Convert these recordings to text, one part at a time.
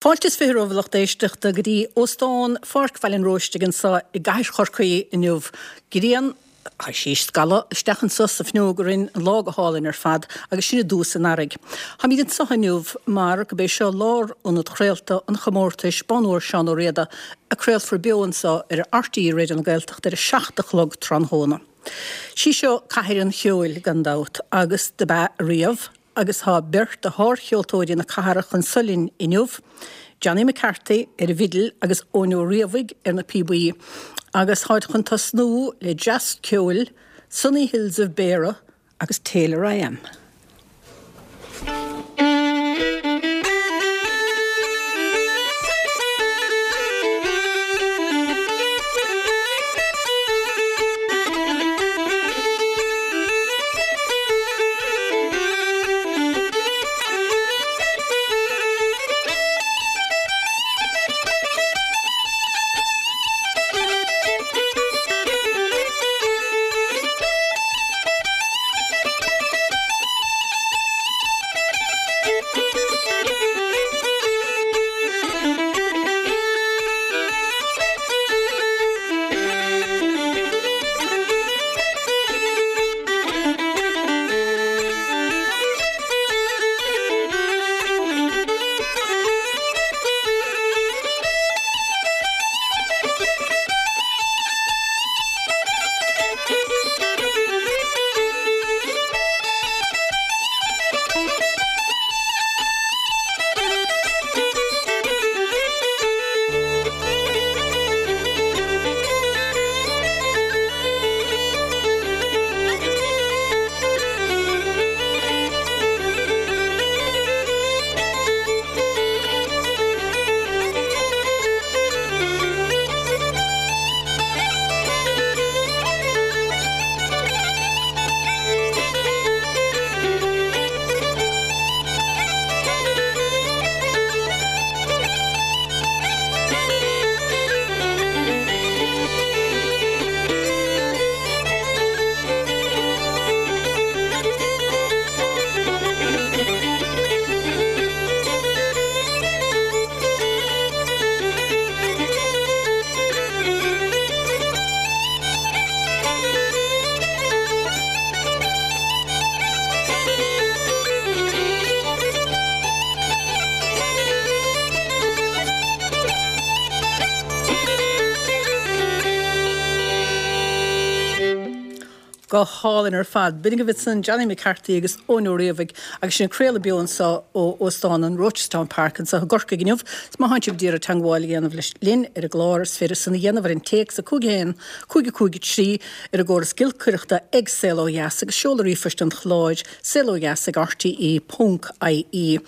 Fáilte is 20 romhaibh a lucht éisteachta go dtí Óstán Pháirc Bhaile an Róistigh anseo i gcathair Chorcaí inniu. Grian, tá sí ag scalladh isteach anseo sa bhfuinneog orainn, an lá go hálainn ar fad agus sinn i dtús an earraigh. Táimid anseo inniu mar gurb é seo lárionad chraolta an chomórtais Bonn Óir Seán Ó Riada a craolfar beo anseo ar RTÉ Raidió na Gaeltachta ar a 7 a chlog tráthnóna. Sí seo cathair an cheoil gan dabht agus dob ea riamh. Agus tá beirt de shárcheoltóirí na cathrach anso linn inniu, Johnny McCarthy ar an bhfidil agus Eoin Ó Riabhaigh ar na píobaí. Agus táid chun tosnú le dreas ceoil, Sunny Hills of Beara agus Taylor I Am. Go hálainn ar fad. B'in agaibh ansan Johnny McCarthy agus Eoin Ó Riabhaigh agus sinn ag craoladh beo anso ó Óstán an Rochestown Park anso i gCorcaigh inniu. Is má thánn sibh d'iarraidh teangmháil a dhéanamh leis linn ar an gclár is féidir san a dhéanamh ar an téacs 5 1 5 5 3 ar an gcóras giolcaireachta ag Saol Ó Dheas agus seoladh ríomhphoist an chláir saolodheas ag rte ponc ie.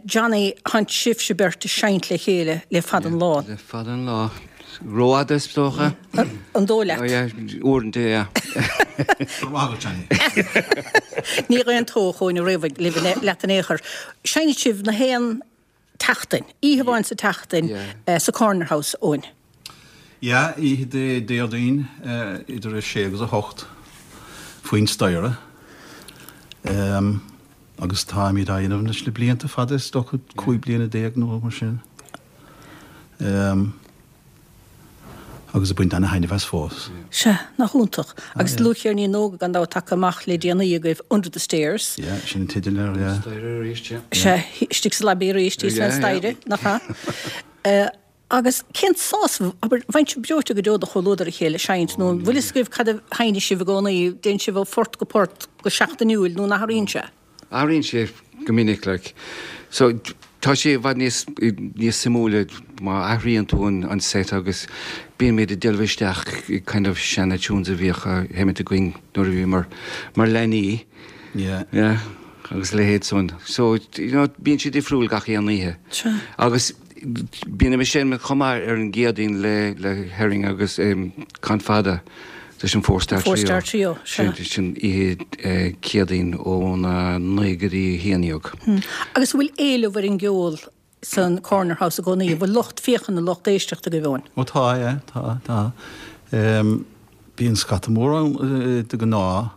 Johnny, Thánn sibhse beirt ag seinnt le chéile le fada an lá. Le fada an lá. Rófhada is dócha. An dóigh leat? Yeah, uaireanta, yeah. Go raibh maith agat, Johnny. Ní dh'aontódh Eoin Ó Riabhaigh libh leat in aon chor. Seinneann sibh na haon tseachtain, oíche amháin sa tseachtain sa Corner House, Eoin. Yeah, oíche Dé Déardaoin idir 6 agus 8 faoin staighre. Agus táimid á dhéanamh anois le blianta fada, is dócha 15 bliana nó mar sin. Agus ag baint ana-thaitneamh as fós. Sea, nach iontach. Agus dlúthcheirnín nua gan dabht tagtha amach le déanaí agaibh, Under the Stairs. Yeah, sin an teideal air, yeah. Staighre arís, yeah. Sea, istigh sa lobby arís, thíos fén staighre, nach ea? Agus cén sásamh, abair, bheadh sibh breoite go deo do chomhluadar a chéile ag seinnt, nó an bhfuil fhios agaibh cad a sheinneas sibh i gcónaí, dtéann sibh ó phort go port go seachtainiúil nó an athraíonn sé? Athraíonn sé go minic, like. So, tá sé i bhfad níos, níos suimiúla má athraíonn tú an, an set agus bíonn muid ag delve isteach i kind of seana tunes a bhíodh á sheimint againn nuair a bhíomar mar leanaí. Yeah. Yeah. Agus a leithéid san. So, you know, bíonn sé difriúil gach aon oíche. Sea. Agus Bíonn ag seinm chomh maith ar an gCéadaoin le le Herring agus Con Fada leis an Four Star Trio. Four Star Trio, sea. Sin oíche Céadaoin óna 9 go dtí 11. Agus an bhfuil éileamh ar an gceol san Corner House i gcónaí? An bhfuil lucht féachana, lucht éisteachta agaibh, Eoin? Ó tá, yeah, tá, tá. Bíonn scata mór ann de ghnáth.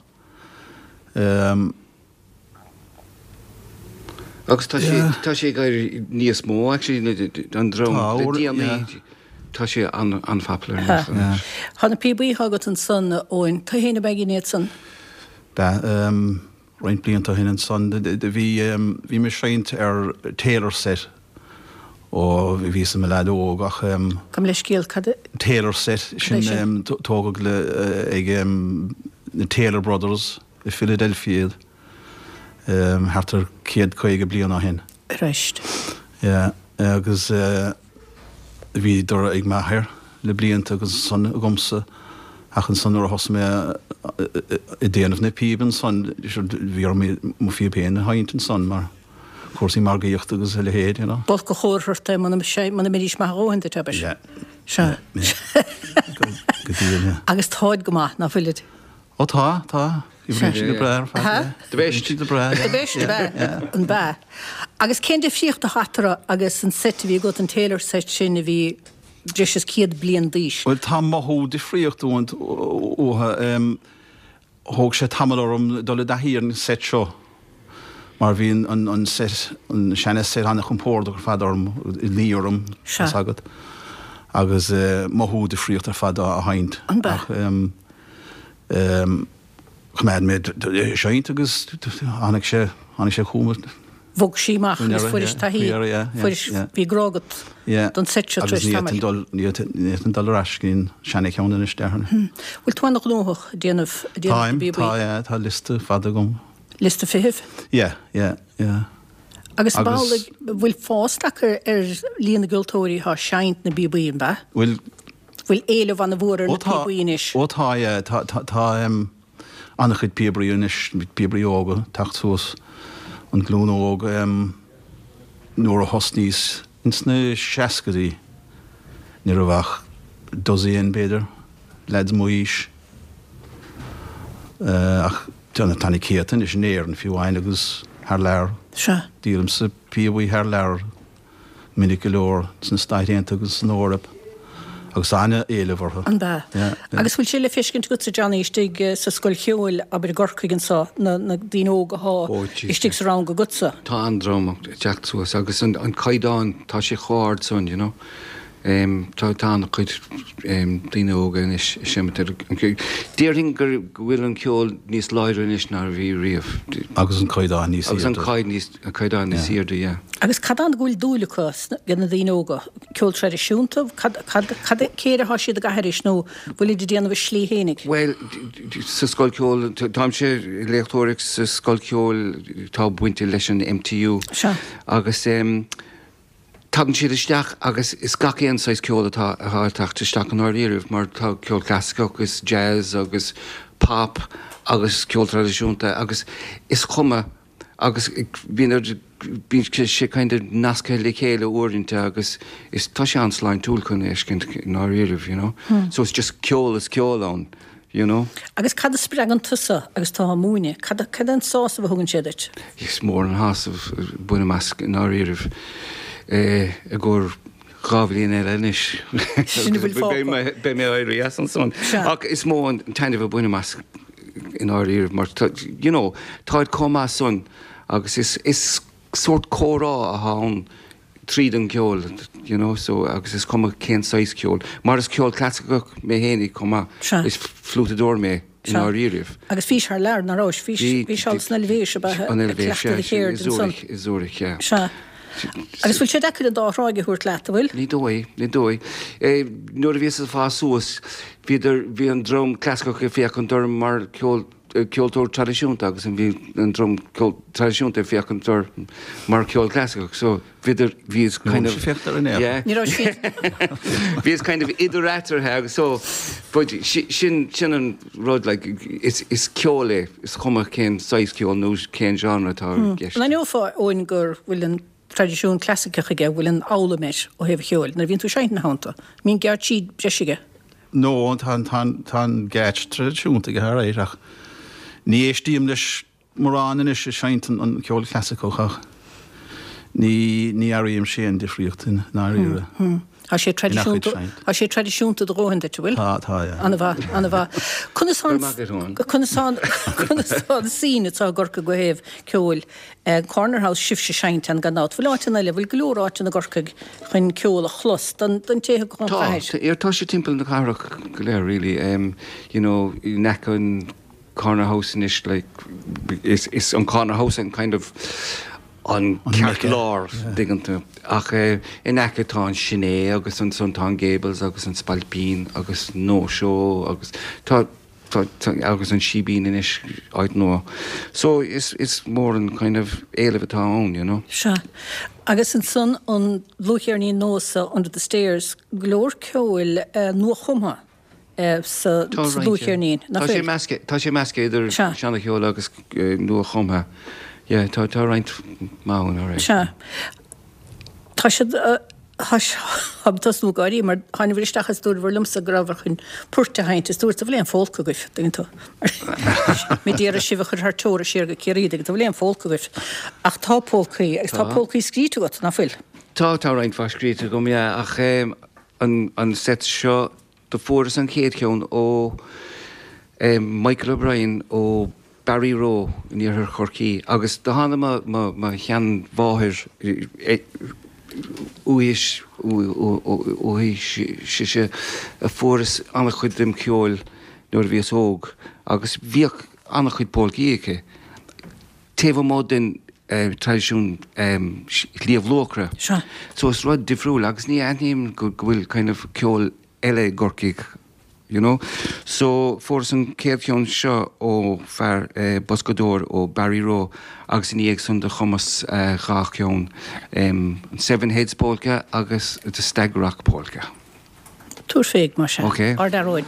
Agus tá sé, tá sé ag éirí níos mó actually an dream le déanaí, tá sé an-popular anois. Tá na píobaí atá agat ansan, a Eoin, tú fhéin ab ea a dhein iad san? B'ea, roinnt blianta ó shin ansan, bhí, bhí mé ag seinnt ar Taylor set ó bhíos i mo leaid óg ach. Gabh mo leithscéal, cad é? Taylor set, sin tógadh le, ag na Taylor Brothers i Philadelphia iad. Thart ar 150 bliain ó shin. Christ. Yeah, agus bhíodar ag m'athair le blianta agus ansan agamsa ach ansan nuair a thosaigh mé ag déanamh na píob ansan bhí orm mo phíob féin a sheinnt ansan mar cúrsaí margaíochta agus a leithéid, you know. B'olc an chomhartha ort é muna mbeidís maith a dhóthain duit, abair. Yeah. Sea. Yeah. Go díreach, yeah. Agus táid go maith, ná fuilid? Ó tá, tá. Oibríonn siad go breá ar fad, yeah. The best. Oibríonn siad go breá, yeah. The best, ab ea? An b'ea? Agus cén difríocht atá eatarthu agus an seit a bhí agat, an Taylor set sin a bhí breis is 100 bliain d'aois? Bhuel, tá mothú difríocht uathu. Thóg sé tamall orm dul i dtaithí ar an seit seo mar bhí an seit, an seana seit an-chompordach ar fad orm, ag luí orm, tá 's agat, agus mothú difríocht ar fad á sheinnt. An b'ea? Choimeád mé ag seinnt agus tháinig sé, tháinig sé chugam. Bhog sí amach agus fuairis taithí, fuairis, bhí grá agat don seit seo tar éis tamaill. Ní fhéadfainn dul ar ais go dtí an seana-cheann anois, déarfainn. Bhfuil tú an-ghnóthach ag déanamh, ag déanamh na bpíobaí? Táim, tá, yeah, tá liosta fada agam. Liosta feithimh? Yeah, yeah, yeah. Agus ab amhlaidh, bhfuil fás tagtha ar líon na gceoltóirí atá ag seinnt na bpíobaí, an b'ea? Bhfuil. Bhfuil éileamh an-mhór ar na píobaí anois? Ó tá, yeah. Tá, tá, tá an-chuid píobairí anois, píobairí óga ag teacht suas, an ghlúin óg. Nuair a thosnaíos ins na seascaidí ní raibh ach dosaen, b'fhéidir, leaids m'aois. Ach tá na céadta anois in Éirinn fiú amháin agus thar lear. Sea. Díolaimse píobaí thar lear. minic go leor sna Stáit Aontaithe agus san Eoraip agus an-éileamh orthu. An b'ea? Agus bhfuil sé le feiscint agatsa, Johnny, istigh sa scoil cheoil, abair i gCorcaigh anso, na daoine óga athá istigh sa rang agatsa? Tá an-dream ag teacht suas agus an caighdeán, tá sé chomh hard san, you know. Tá an-chuid daoine óga anois ag seimint ar an gceol. Déarfainn go bhfuil an ceol níos láidre anois ná a bhí riamh. Agus an caighdeán níos airde. Agus an caighdeán níos airde, yeah. Agus cad ann go bhfuil dúil acu ag na daoine óga? Ceol traidisiúnta? Cad, cad, cad, cé air atá siad ag aithris nó bhfuilid ag déanamh a slí fhéinig? Bhuel, sa scoil ceoil, táimse ag léachtóireacht sa scoil ceoil atá bainte leis an MTU. Sea. Agus Tagann siad isteach agus is gach aon saghas ceol atá ag teacht isteach i ndáiríribh mar tá ceol clasaiceach agus jazz agus pop agus ceol traidisiúnta agus is cuma agus bíonn bíonn sé kind of nasctha le chéile uaireanta agus is tá sé an-sláintiúil chun é a fheiscint i ndáiríribh, you know. So it's just ceol is ceol ann. you know. Agus cad a spreagann tusa agus tú á múineadh? Cad cad é an sásamh a thugann sé duit? Is mór an sásamh a bhainim as i ndáiríribh i gcomhair 2 bhliain eile anois. Sin a bhfuil fágtha. Beidh mé ag éirí as ansan. Ach is mó an taitneamh a bhainim as i ndáiríribh mar tá, you know, táid chomh maith san agus is is sórt comhrá atá ann tríd an gceol, you know, so agus is cuma cén saghas ceoil, mar is ceol clasaiceach mé fhéinig chomh maith, Sea. is fliútadóir mé i ndáiríribh. Agus bhís thar lear, nach rabhais? Bhís, bhís thall san Eilvéis, ab ea, An ag Eilvéis, cleachtadh do sea, cheird i ansan. Zurich, i Zurich, yeah. Sea. Agus bhfuil sé deacair an dá thráigh a thabhairt leat, an bhfuil? Ní dóigh, ní dóigh. Eh, nuair a bhíos ag fás suas, bhíodar, bhí an dream clasaiceach ag féachaint orm mar ceol, ceoltóir traidisiúnta agus bhí an dream ceol traidisiúnta ag féachaint orm mar ceol clasaiceach so bhíodar bhíos kind of yeah Ní raibh siad bhíos kind of idir eatarthu agus so but sin sin an rud like is is ceol é is cuma cén saghas ceol nó cén genre atá i gceist. An aithneofá Eoin go bhfuil an traidisiún clasaiceach aige, bhfuil an fhoghlaim air ó thaobh an cheoil nuair a bhíonn tú ag seinnt ina theannta? Mbíonn geáitsí breise aige? No, tá an geáitse traidisiúnta aige alright ach ní éistím leis mórán anois ag seinnt an ceol clasaiceach ach ní ní airímse aon difríocht i ndáiríre. Tá sé traidisiúnta, tá sé traidisiúnta do dhóthain duit, an bhfuil? Tá, tá, yeah. An-mhaith, an-mhaith. Conas tá an, conas tá an, conas tá an scene atá i gCorcaigh ó thaobh ceoil? Corner House, sibhse ag seinnt ann gan dabht. Bhfuil áiteanna eile, bhfuil go leor áiteanna i gCorcaigh chun ceol a chlos don, don té a thig chun Tá, chathair? tá sé timpeall na cathrach go léir really. You know, in aice an Corner House anois like is, is an Corner House an kind of an ceartlár, dtuigeann tú. Ach in aice tá an Sin É agus ansan tá an Gables agus an Spailpín agus No Show agus tá, tá, tá, agus an Síbín anois, áit nua. So is, is mór an kind of éileamh atá ann, you know. Sea. Agus ansan an dlúthcheirnín nua so, Under the Stairs, go leor ceoil nuachumtha. sa dlúthcheirnín, nach bhfuil? Tá sé measctha idir seana-cheol agus nua-chumtha. Yeah, tá roinnt maith ann, alright. Sea. Tá siad, táim ag tosnú ag gáirí mar tháinabhair isteach is dúradhbhair liomsa go rabhabhair chun poirt a sheinnt is dúrt an bhfuil aon phólca agaibh, dtuigeann tú. Mé d'iarraidh sibh a chur thar teora siar go Ciarraí, dtuigeann tú, an bhfuil aon phólca agaibh. Ach tá pólcaí agus tá pólcaí scríte agat, nach bhfuil? Tá, tá roinnt mhaith scríte agam, yeah, ach an set seo Do fuaireas an chéad cheann ó Michael O'Brien ó Barryroe in iarthar Chorcaí agus do tháinig mo mo sheanmháthair uaithi uaithi sise a fuaireas an-chuid dem cheol nuair a bhíos óg agus bhíodh an-chuid pólcaí aici taobh amuigh den traidisiún Shliabh Luachra. So is rud difriúil agus ní aithním go bhfuil kind of ceol eile i gCorcaigh, you know. So fuaireas an chéad cheann seo ó fear boscadóir ó Barryroe agus ina dhiaidh san do chumas dha cheann, an Seven Heads Polka agus The Stag Rock Polka. Tabhair féig, mar sin. Ok. Ár bhfear óig.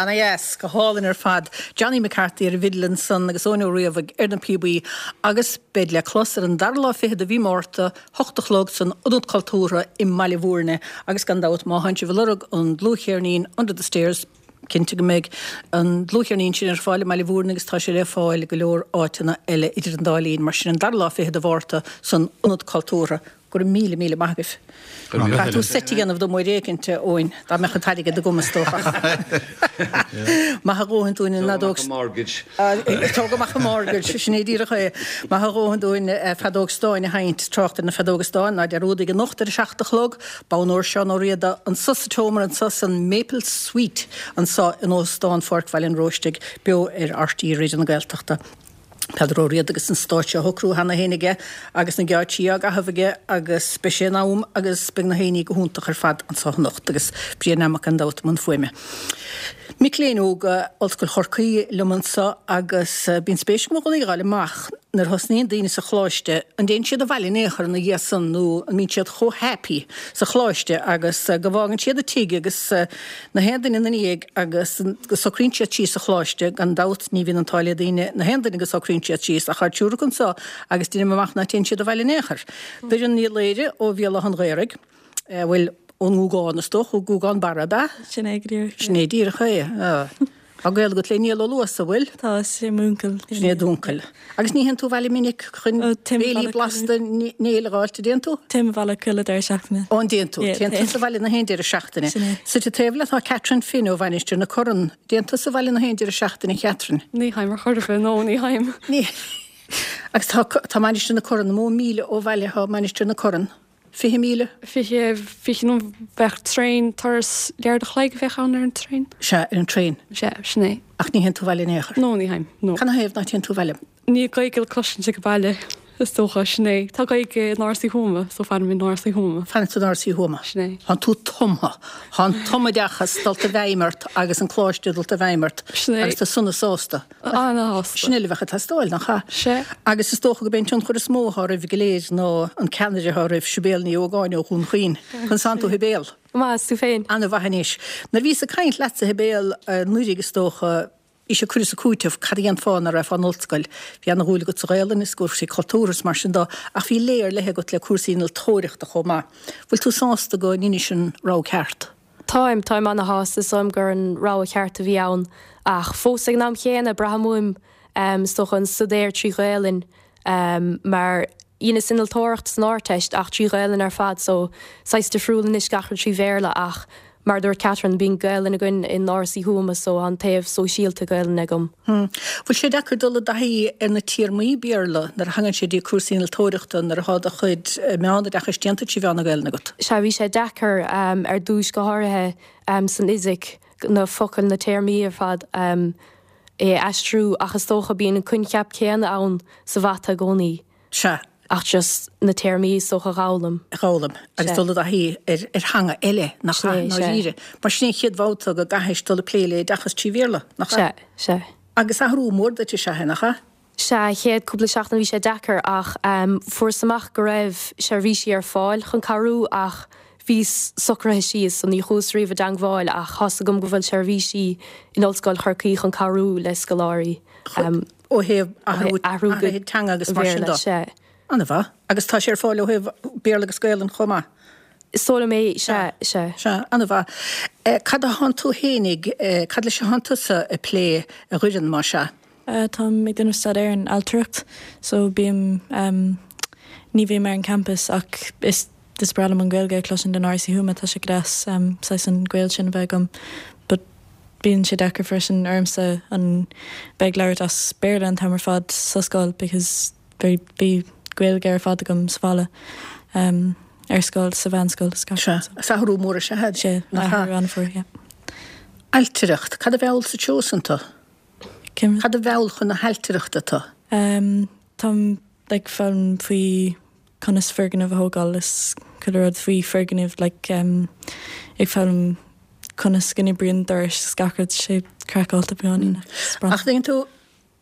Ana dheas, go hálainn ar fad. Johnny McCarthy ar an bhfidil ansan agus Eoin Ó Riabhaigh ar na píobaí agus beid le clos ar an dara lá fichead de mhí Márta, hocht a chlog san Ionad Cultúrtha i mBaile Bhúirne agus gan dabht má thánn sibh ag lorg an dlúthcheirnín Under the Stairs, cinnte go mbeidh an dlúthcheirnín sin ar fáil i mBaile Bhúirne agus tá sé le fáil i go leor áiteanna eile idir an dá linn. Mar sin an dara lá fichead de Mhárta san Ionad Cultúrtha. Go raibh míle, míle maith agaibh. Caithfidh tú seit a dhéanamh dom uair éicint, a Eoin, dá mbeadh an t-airgead agam, is dócha. Maith a dhóthain dúinn an fheadóg. Tóg amach an mortgage. Tóg amach an mortgage, sin é díreach é. Maith a dhóthain dúinn feadóg stáin a sheinnt, trácht ar na feadóga stáin, ná dearúdaigh anocht ar a seacht a chlog, Bonn Óir Seán Ó Riada anso sa tseomra anso san Maple Suite anso in Óstán Pháirc Bhaile an Róistigh, beo ar RTÉ Raidió na Gaeltachta. Peadar Ó Riada agus an stáitse á shocrú cheana féin aige agus na geáitsí á gcaitheamh aige agus beidh sé in am agus beidh na haíonna go hiontach ar fad anso anocht agus Brian Nammock gan dabht i mbun fuaime. Mic léinn óga Ollscoil Chorcaí liom anso agus bíonn spéis agam i gcónaí a fháil amach nuair a thosnaíonn daoine sa choláiste an dtéann siad abhaile in aon chor ina dhiaidh san nó an mbíonn siad chomh happy sa choláiste agus go bhfágann siad an tigh agus na haon duine ina ndiaidh agus go socraíonn siad síos sa choláiste, gan dabht ní bhíonn an t-ádh le daoine, na haon duine go socraíonn siad síos, ach tá triúr acu anso agus deinim amach ná téann siad abhaile in aon chor. Doireann Ní Laoire ó Bhéal Átha an Ghaorthaidh, bhuel, ón nGúgán is dócha, ó Gúgán Barra, ab ea? Sin é go díreach. Sin é díreach é. Tá gaol agat le Niall Ó Luasa, bhfuil? Tá, is é m'úncail. Sin é d'úncail. Agus ní théann tú abhaile minic chun béilí blasta Néill a dh'fháilt, an dtéann tú? Téim abhaile chuile deireadh seachtaine. Ó, an dtéann tú? Téann tusa abhaile na haon deireadh seachtaine. Sin é. Suite taobh leat tá Catherine Finn ó Mhainistir na Corann. Dtéann tusa abhaile na haon deireadh seachtaine, a Chatherine? Ní théim ar chor ar bith, no, ní théim. Ní. Agus tá, tá Mainistir na Corann, an mó míle ó bhaile atá Mainistir na Corann? 20,000? 20, 20 nó bheadh traein, turas leathuair a chloig a bheadh ann ar an traein. Sea, ar an traein. Sea, sin é. Ach ní théann tú abhaile in aon chor? No, ní théim, no. Cad 'na thaobh ná téann tú abhaile? Níl Gaeilge le cloisint ag baile, is dócha, sin é. Tá Gaeilge in Áras Uí Thuama, so fanaim in Áras Uí Thuama. Fanann tú in Áras Uí Thuama. Sin é. Tánn tú tumtha. Tá an tumoideachas dulta i bhfeidhm ort agus an coláiste dulta i bhfeidhm ort. Sin é. Agus tú sona sásta. Ana-shásta. Sin uile a bheadh ag teastáil, nach ea? Sea. Agus is dócha gurb é an tionchar is mó atá oraibh go léir ná an ceannaire atá oraibh, Sibéal Ní Ógáin ó Dhún Chaoin. Conas tánn tú, a Shibéal? Go maith, is tú féin? Ana-mhaith anois. Nuair a bhíos ag caint leatsa, a Shibéal, anuraidh is dócha, bhí sé cur is ag cúiteamh, cad a dhéanfá nuair a raghfá in ollscoil. Bhí ana-dhúil agat sa Ghaelainn is cúrsaí cultúrtha is mar sin dó, ach bhí lé ar leith agat le cúrsaí innealtóireachta chomh maith. Bhfuil tú sásta go ndeinis an rogha ceart? Táim, táim ana-shásta, is dóigh liom gur an rogha cheart a bhí ann ach fós ag an am chéanna braithim uaim is dócha an staidéar trí Ghaelainn mar dheineas innealtóireacht san Ardteist ach trí Ghaelainn ar fad so saghas difriúil anois gach rud trí Bhéarla ach mar a dúirt Catherine bíonn Gaelainn againn in Áras Uí Thuama so tá an taobh sóisialta Gaelainne agam. Bhfuil sé deacair dul i dtaithí ar na téarmaí Béarla nuair a thagann sé dtí cúrsaí innealtóireachta nuair atá do chuid meánoideachais déanta trí mheán na Gaelainne agat? Sea, bhí sé deacair ar dtúis, go háirithe san fhisic, na focail, na téarmaí ar fad é a aistriú ach is dócha bíonn an coincheap céanna ann sa mhata i gcónaí. Sea. Ach just na téarmaí is dócha a dh'fhoghlaim. a dh'fhoghlaim agus dul i dtaithí ar ar theanga eile, nach ea, i ndáiríre. Mar sin é an chéad bhabhta go gcaithfis dul ag plé le oideachas trí Bhéarla, nach ea? Sea, sea. Agus athrú mór duit is ea é, nach ea? Sea, chéad cúpla seachtain bhí sé deacair ach fuaireas amach go raibh seirbhísí ar fáil chun cabhrú ach bhíos socraithe síos so ní chuas riamh i dteangmháil ach tá's agam go bhfuil seirbhísí in Ollscoil Chorcaí chun cabhrú le scoláirí. Ó thaobh athrú, athrú go teanga agus mar sin de. An-mhaith. Agus tá sé ar fáil ó thaobh Béarla agus Gaelainn chomh maith? Is dóigh liom é, sea, sea. Sea, an-mhaith. Cad a thánn tú fhéinig, cad leis a thánn tusa ag plé, a Dhoireann, más ea? Táim ag déanamh staidéar in ailtireacht so bím, ní bhím ar an campus ach is is breá liom an Ghaeilge a chloisint in Áras Uí Thuama, tá sé go deas saghas an gaol sin a bheith agam but bíonn sé deacair freisin ormsa an bheith ag labhairt as Béarla an t-am ar fad sa scoil because bhí bhí Gaeilge ar fad agam sa bhaile ar scoil sa mheánscoil is gach Sea, is athrú mór is ea é. Sea, athrú an-mhór, yeah. Ailtireacht, cad a mheall sa treo san tú? Cad a mheall chun na hailtireachta tú? Táim like foghlaim faoi conas foirgneamh a thógáil is chuile rud faoi foirgnimh like ag foghlaim conas go n-oibríonn dorais is gach rud sé craiceáilte beagáinín ach is breá. Ach tuigeann tú.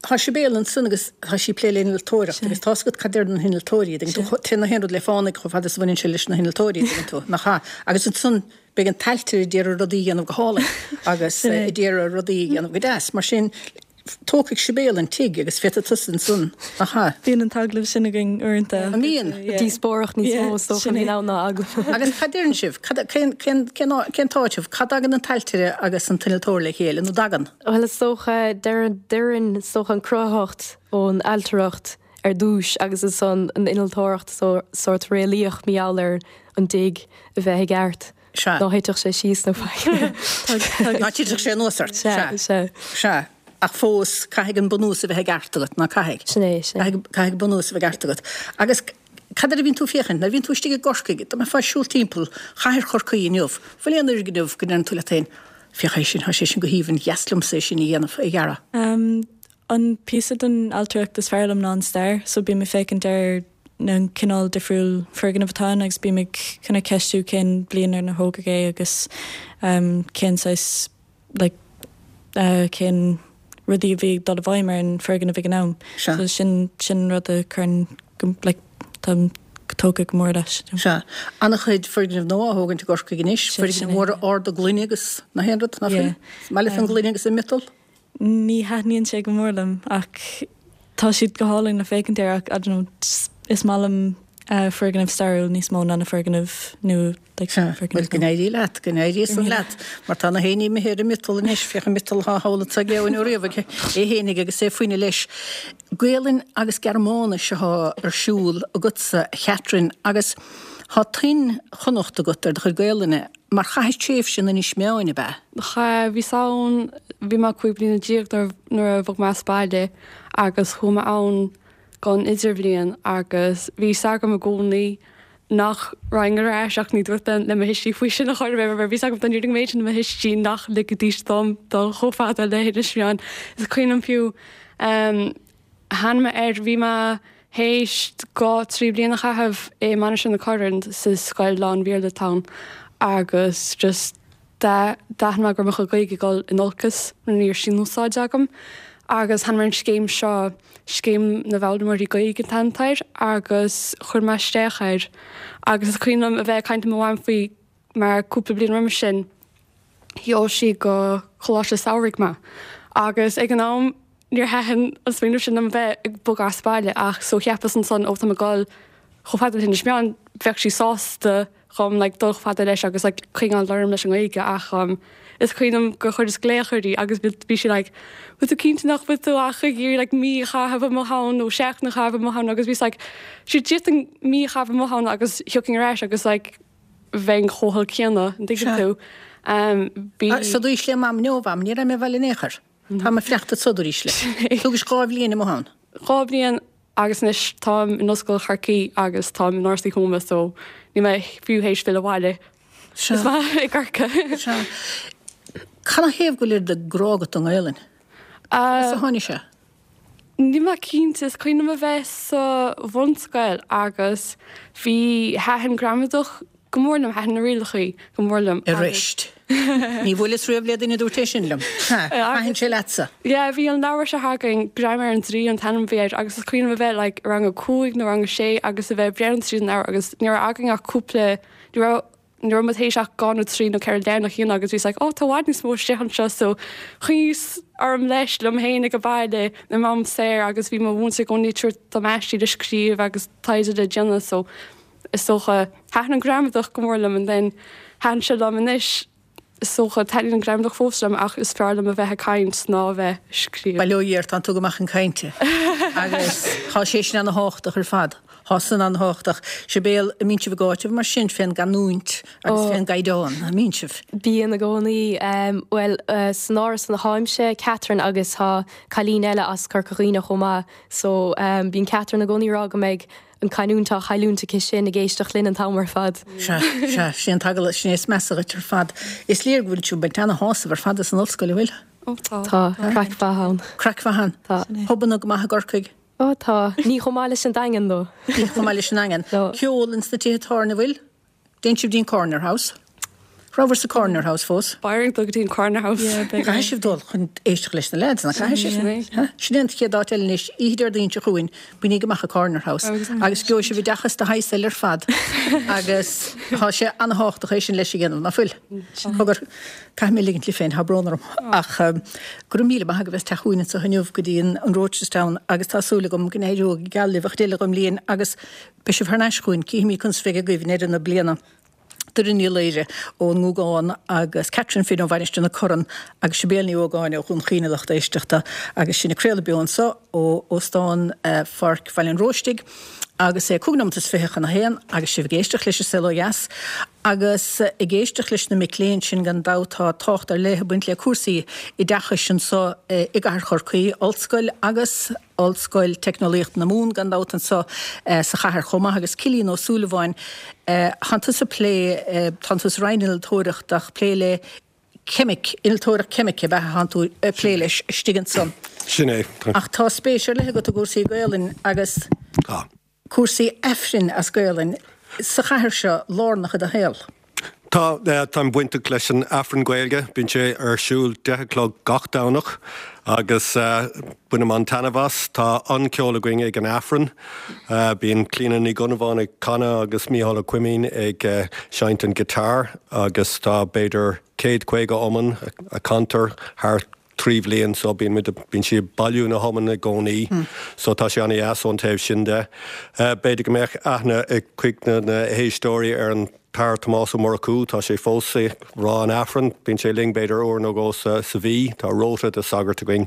Tá Sibéal ansan agus tá sí ag plé le innealtóireacht agus tá's agat cad deir na hinnealtóirí, dtuigeann tú, téann na haon rud le fánaidh chomh fada is a bhaineann sé leis na hinnealtóirí, dtuigeann tú, nach ea? Agus ansan beidh an t-ailtire a d'iarraidh rudaí a dhéanamh go hálainn agus a d'iarraidh rudaí a dhéanamh go deas. Mar sin, tógfaidh Sibéal an tigh agus féadfaidh tusa ansan, nach ea? Bíonn an t-agallamh sin againn uaireanta. An mbíonn? Díospóireacht níos mó is dócha a bhíonn ann ná agallamh. Agus cad deireann sibh? Cad, cén, cén, cén, cén t-áiteamh? Cad dtagann an t-ailtire agus an t-innealtóir le chéile, nó dtagann? Bhuel is dócha, deireann, is dócha an cruthaitheacht ón ailtireacht ar dtúis agus ansan an innealtóireacht sórt réalaíoch mar gheall ar an dtigh a bheith i gceart. Sea. Ná thitfeadh sé síos nó faic. Ná titfeadh sé anuas ort. Sea, sea. Sea. Ach fós, caithfidh an bunús a bheith i gceart agat, ná caithfidh? Sin é, sin é. Caithfidh an bunús a bheith i gceart agat. Agus cad air a bhíonn tú ag féachaint? Nuair a bhíonn tú istigh i gCorcaigh, dá mbeifeá ag siúl timpeall chathair Chorcaí inniu, bhfuil aon fhoirgneamh go ndeireann tú leat féin, féach é sin, tá sé sin go haoibhinn, dheas liomsa é sin a dhéanamh, a dhearadh? An píosa den ailtireacht is fearr liom ná an stair, so bím ag féachaint ar na cineál difriúil foirgneamh atá ann agus bím ag kind of ceistiú cén bhliain ar ar thógadh é agus cén saghas like cén rudaí a bhí ag dul i bhfeidhm ar an foirgneamh ag an am. Sea. So sin sin an rud a chuireann go like táim tógtha go mór leis. Sea. An-chuid foirgneamh nua á thógaint i gCorcaigh anois, Sin foirgnimh é. mhóra arda gloine agus na haon rud, nach Yeah. bhfuil? Is maith leat an gloine agus an miotal? Ní thaitníonn sé go mór liom ach tá siad go hálainn le féachaint air ach I don't know is maith liom foirgnimh stairiúil níos mó ná na foirgnimh nua like Sea, bhuel foirgnimh go nua. n-éirí leat, go n-éirí san leat mar tá na héinní imithe ar an miotal anois, féach an miotal atá thall anso ag Eoin Ó Riabhaigh é fhéinig agus é faoina leis. Gaolainn agus Gearmáinis atá ar siúl agatsa a Chatherine agus tá tuin Chonnacht agat ar do chuid Gaolainne. Mar chaithis tréimhse in Inis Meáin, ab ea? Chaith, bhíos ann, bhí mé 15 bliana nuair a bhog mé as baile agus chuaigh mé ann don idirbhliain agus bhí fhios agam i gcónaí nach raghainn ar ais ach ní dúirt mé le mo thuistí faoi sin a chor ar bith mar bhí fhios agam dá ndéarfainn an méid sin le mo thuistí nach ligfidís dom dul chomh fada le hInis Meáin. Is cuimhin liom fiú, Tháinig mé air, bhí mé théis dhá, trí bliana a chaitheamh i Mainistir na Corann sa scoil lán-Bhéarla atá ann agus just d'aithin mé go raibh mo chuid Gaeilge ag dul in olcas mar ní raibh sí in úsáid agam agus tháinig mé ar an scéim seo, Scéim na bhFoghlaimeoirí Gaeilge an t-ainm atá air agus chuir mé isteach air agus is cuimhin liom a bheith ag caint le mo mham faoi mar cúpla bliain roimis sin sheol sí go coláiste samhraidh mé agus ag an am níor thaitin an smaoineamh sin liom a bheith ag bogadh as baile ach so cheapas ansan ó tá mé ag dul chomh fada le hInis Meáin bheadh sí sásta dhom like dul chomh fada leis agus like coinneáil orm leis an nGaeilge ach um is cuimhin liom gur chuireas glaoch uirthi agus bhí sí like bhfuil tú cinnte nach bhfuil tú ach ag iarraidh like mí a chaitheamh amuigh ann nó seachtain a chaitheamh amuigh ann agus bhíos like sure d'fhéadfainn mí a chaitheamh amuigh ann agus thiocfainn ar ais agus like bheinn chomh holc céanna, an dtuigeann tú? Bhí. So dúirt le Mam inniu, Mham, ní raibh mé abhaile in aon chor. Tá mé ag fanacht anso dúirt le. Thugais 2 bhliain amuigh ann. 2 bhliain agus anois táim in Ollscoil Chorcaí agus táim in Áras Uí Thuama so níl mé fiú théis filleadh abhaile. Sea. Is maith i gCorcaigh. Sea. Canathaobh go bhfuil oiread de grá agat don nGaelainn? As a tháinig sé? Níl mé cinnte, is cuimhin liom a bheith sa bhunscoil agus bhí, thaitin gramadach go mór liom, thaitin na rialachaí go mór liom agus. Arís. Ní bhuaileas riamh le duine a dúirt é sin liom. Thaitin sé leatsa? Yeah, bhí an leabhar seo againn, Graiméar an Draoi an t-ainm a bhí air agus is cuimhin liom a bheith like i rang a cúig nó rang a sé agus a bheith ag breathnú tríd an leabhar agus ní raibh againn ach cúpla, ní raibh, ní raibh muid théis ach dhá nó trí nó ceithre leathanach a dhéanamh agus bhíos like oh tá i bhfad níos mó istigh anseo so choinníos orm leis liom féin ag an baile i m'am saor agus bhí mo mhúinteoir i gcónaí ag tabhairt dom aistí le scríobh agus taighde le déanamh so is dócha thaitin an gramadach go mór liom and then thaitin sé liom anois is dócha taitníonn an gramadach fós liom ach is fearr liom a bheith ag caint ná a bheith ag scríobh. Bail ó Dhia ort, tánn tú go maith chun cainte agus tá sé sin ana-thábhachtach ar fad. Tá san an-thábhachtach. Sibéal, an mbíonn sibh ag áiteamh mar sin fén gcanúint agus fén gcaighdeán, an mbíonn sibh? Bíonn i gcónaí. Bhuel, san áras ina tháimse, Catherine agus tá cailín eile as Corca Dhuibhne chomh maith so bíonn Catherine i gcónaí ag rá go mbeidh an canúint á chailliúint aici sin ag éisteacht linn an t-am ar fad. Sea, sea, sin é an t-agallamh, sin é is measa dhuit ar fad. Is léir go bhfuil sibh ag baint ana-shásamh ar fad as an ollscoil, an bhfuil? Ó tá. Tá, craic mhaith ann. Craic mhaith ann. Tá. Pubanna go maith i gCorcaigh. Ó tá. Ní chomh maith leis an Daingean though. Ní chomh maith leis an nDaingean. No. Ceol ins na tithe tábhairne, bhfuil? Dtéann sibh dtí'n Corner House? Rabhabhair sa Corner House fós? Beidh orainn dul go dtí an Corner House. Yeah, beidh Caithfidh sibh dul chun éisteacht leis na leaids, nach caithfidh sibh? Sin é. Sin é an chéad áit eile anois, oíche Déardaoin seo chugainn, bainigí amach an Corner House agus gheobhaidh sibh oideachas de shaghas eile ar fad agus tá sé an-thábhachtach é sin leis a dhéanamh, nach bhfuil? Cogar, caithfidh mé ligint libh féin, tá brón orm ach go raibh míle maith agaibh as teacht chugainn anseo inniu go dtí an Rochestown agus tá súil agam go n-éireoidh go geal libh an chuid eile den mbliain agus beidh sibh thar n-ais chugainn, cífimid conas a bheidh agaibh i ndeireadh na bliana. Doireann Ní Laoire ón nGúgán agus Catherine Finn ó Mhainistir na Corann agus Sibéal Ní Ógáin ó Dhún Chaoin a lucht éisteachta agus sinn ag craoladh beo anseo ó Óstán Pháirc Bhaile an Róistigh agus é 25 nóimeat chun a haon agus sibh ag éisteacht leis an Saol Ó Dheas agus ag éisteacht leis na mic léinn sin gan dabht tá tábhacht ar leith ag baint le cúrsaí oideachais anseo i gcathair Chorcaí, Ollscoil agus. Ollscoil Teicneolaíochta na Mumhan gan dabht anseo sa chathair chomh maith agus Cillian Ó Súilleabháin, tánn tusa ag plé, tánn tú sa Roinn Innealtóireachta ach plé le ceimic, innealtóireacht ceimice ab ea a thánn tú ag plé leis istigh ansan. Sin é. Ach tá spéis ar leith agat i gcúrsaí Gaolainn agus. Tá. Cúrsaí Aifrinn as Gaolainn sa chathair seo lárnach i do shaol. Tá, táim bainteach leis an Aifreann Gaeilge, bíonn sé ar siúl 10 a chlog gach Domhnach agus bainim an-taitneamh as. Tá an-cheol againn ag an Aifreann, bíonn Clíona Ní Dhonnabháin ag canadh agus Mícheál Ó Coimín ag seinnt an guitar agus tá b'fhéidir 150 iomann a chantar thar 3 bhliain so bíonn muid, bíonn siad ag bailiú na hiomann i gcónaí so tá sé an-dheas ón taobh sin de. B'fhéidir go mbeadh aithne ag cuid de na héisteoirí ar an tAthair Tomás Ó Murchú, tá sé fós ag rá an Aifrinn, bíonn sé linn b'fhéidir uair nó dhó sa mhí, tá rota de sagairt againn.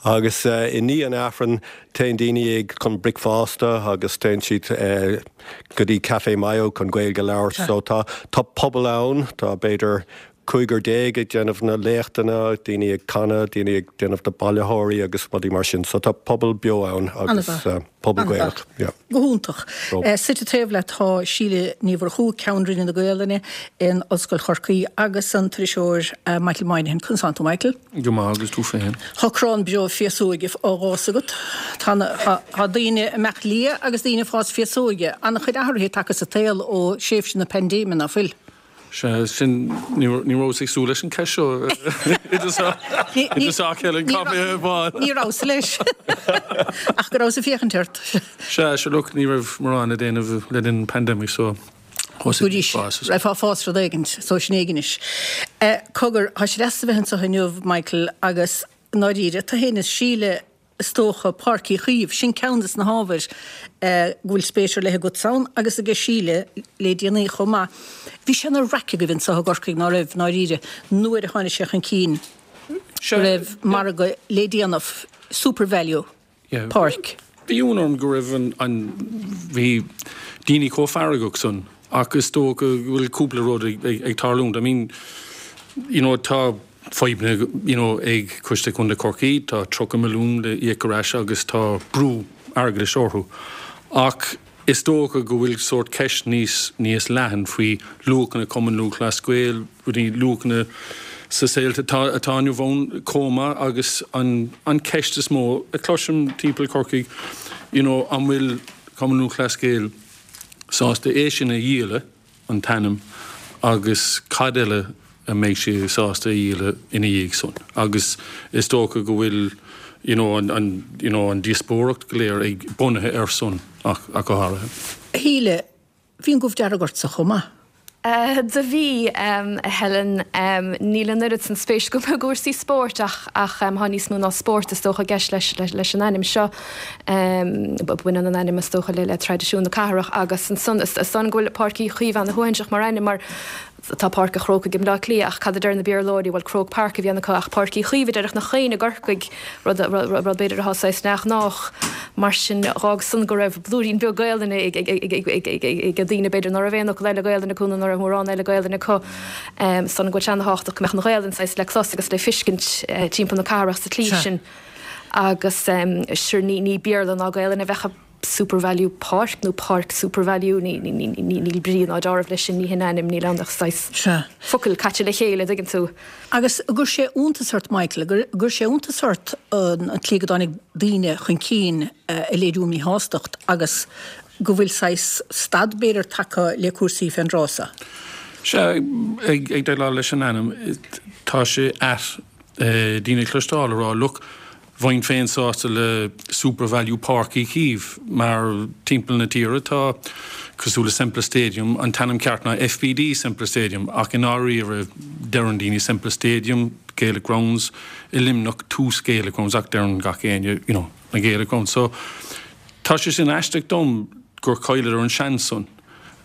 Agus i ndiaidh an Aifrinn téann daoine ag chun bricfeasta agus téann siad go dtí Café Mayo chun Gaeilge a labhairt so tá tá pobal ann, tá b'fhéidir cúigear ag déanamh na léachtanna, daoine ag canadh, daoine ag déanamh na bailitheoirí agus rudaí mar sin. So tá pobal beo ann agus pobal Gaelach. Yeah. Go hiontach. Suite taobh leat tá Síle Ní Mhurchú, Ceann Roinne na Gaolainne in Ollscoil Chorcaí agus an t-iriseoir Michael Moynihan. Conas tánn tú Michael? Go maith agus tú féin? Tá crann breá féasóige á dh'fhás agat. Tá tá daoine ag imeacht liath agus daoine ag fás féasóige. An-chuid athruithe tagtha sa tsaol ó thréimhse na paindéime, ná fuil? Sea, sin, ní rabhas ag súil leis an ceist seo i dtosach, Helen, caithfidh mé a admháil. Ní rabhas leis, ach go rabhas ag féachaint ort. Sea, sure look, ní raibh mórán le déanamh le linn an pandemic so thosaigh mé ag fás. Raibh fás rud éigin, so sin éigin anois. Cogar, tá sé deas a bheith anseo inniu, Michael, agus i ndáiríre, tú féin is Síle, Is dócha, Páirc Uí Chaoimh, sin ceann des na hábhair go bhfuil spéis ar leith agatsa ann agus aige Síle le déanaí chomh maith. Bhí sé ina raic agaibh anseo i gCorcaigh, ná raibh, i ndáiríre, nuair a tháinig sé chun cinn go raibh margadh le déanamh, Supervalu, Páirc. Bhí ionadh orm go raibh an, an, bhí daoine chomh feargach san ach is dócha go bhfuil cúpla rud ag, ag, ag tarlúint. I mean, you know, tá fadhbanna you know ag Coiste Contae Chorcaí, tá 30 milliún le íoc ar ais agus tá brú airgeadais orthu. Ach is dócha go bhfuil sórt ceist níos níos leathan faoi luachanna Cumann Lúthchleas Gael, rudaí luachanna sa saol atá atá inniu ann chomh maith agus an an ceist is mó a chloisim timpeall Corcaigh you know an bhfuil Cumann Lúthchleas Gael sásta é sin a dhíoladh an t-ainm agus cad eile a mbeidh sé sásta a dhíoladh ina dhiaidh san agus is dócha go bhfuil you know an an you know an díospóireacht go léir ag bunaithe air san ach ach go háirithe. A Shíle, bhí an gomh dearg ortsa chomh maith. Do bhí, a Helen. Níl an oiread san spéis agam i gcúrsaí spóirt ach ach tá níos mó ná spórt is dócha i gceist leis leis an ainm seo. Baineann an ainm is dócha le traidisiún na cathrach agus ansan is dóigh liom go bhfuil Páirc Uí Chaoimh ana-shuaithinseach mar ainm mar tá Páirc an Chrócaigh i mBleá Cliath ach cad a deir na Béarlóirí, bhuel Croke Park a bhíonn acu ach Páirc Uí Chaoimh a déarfadh nach éinne i gCorcaigh, rud rud b'fhéidir atá saghas neamhghnách. Mar sin dh'fhág san go raibh blúirín beag Gaelainne ag ag daoine b'fhéidir ná raibh aon fhocal eile Gaelainne acu nó ná raibh mórán eile Gaelainne acu. Is dóigh liom go bhfuil sé ana-thábhachtach go mbeadh an Ghaelainn saghas le clos agus le fiscint timpeall na cathrach sa tslí sin. Agus sure ní ní Béarla ná Gaelainn a bheadh i Supervalu Páirc nó Páirc Supervalu, ní ní ní ní níl brí ná deáramh leis sin, ní hin ainm, níl ann ach saghas Sea. focail caite le chéile, dtuigeann tú. Agus an gcuir sé iontas ort, Michael, an gcuir sé iontas ort an tslí go dtáinig daoine chun cinn ag léiriú míshástacht agus go bhfuil saghas stad b'fhéidir tagtha le cúrsaí fén dtráth seo? Sea, ag déileáil leis an ainm, tá sé ait daoine a chloisteáil ag rá look, bheinn féin sásta le Supervalu Páirc Uí Chaoimh mar timpeall na tíre tá, cosúil le Semple Stadium, an t-ainm ceart ná FBD Semple Stadium ach i ndáiríre deireann daoine Semple Stadium, Gaelic Grounds, i Luimneach Tús Gaelic Grounds ach deireann gach éinne you know na Gaelic Grounds. So tá sé sin aisteach dom gur chailleadar an seans san.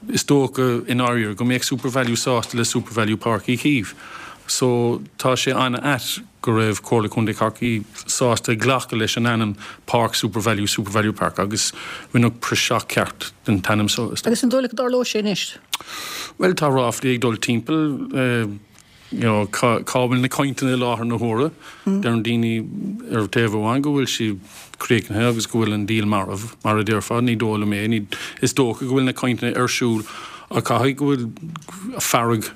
Is dócha, i ndáiríre, go mbeadh Supervalu sásta le Supervalu Páirc Uí Chaoimh. So, tá sé an-ait go raibh Comhairle Contae Chorcaí sásta glacadh leis an ainm Páirc Supervalu, Supervalu Park, agus rinneadh praiseach ceart den t-ainm so, is dócha. Agus an dóigh leat go dtarlóidh sé anois? Bhuel, tá ráflaí ag dul timpeall. you know, cá bhfuil na cainteanna i láthair na huaire. Deireann daoine ar taobh amháin go bhfuil siad críochnaithe agus go bhfuil an díol marbh, mar a déarfá. Ní dóigh liom é. Ní, is dócha go bhfuil na cainteanna ar siúl ach caithfidh go bhfuil fearg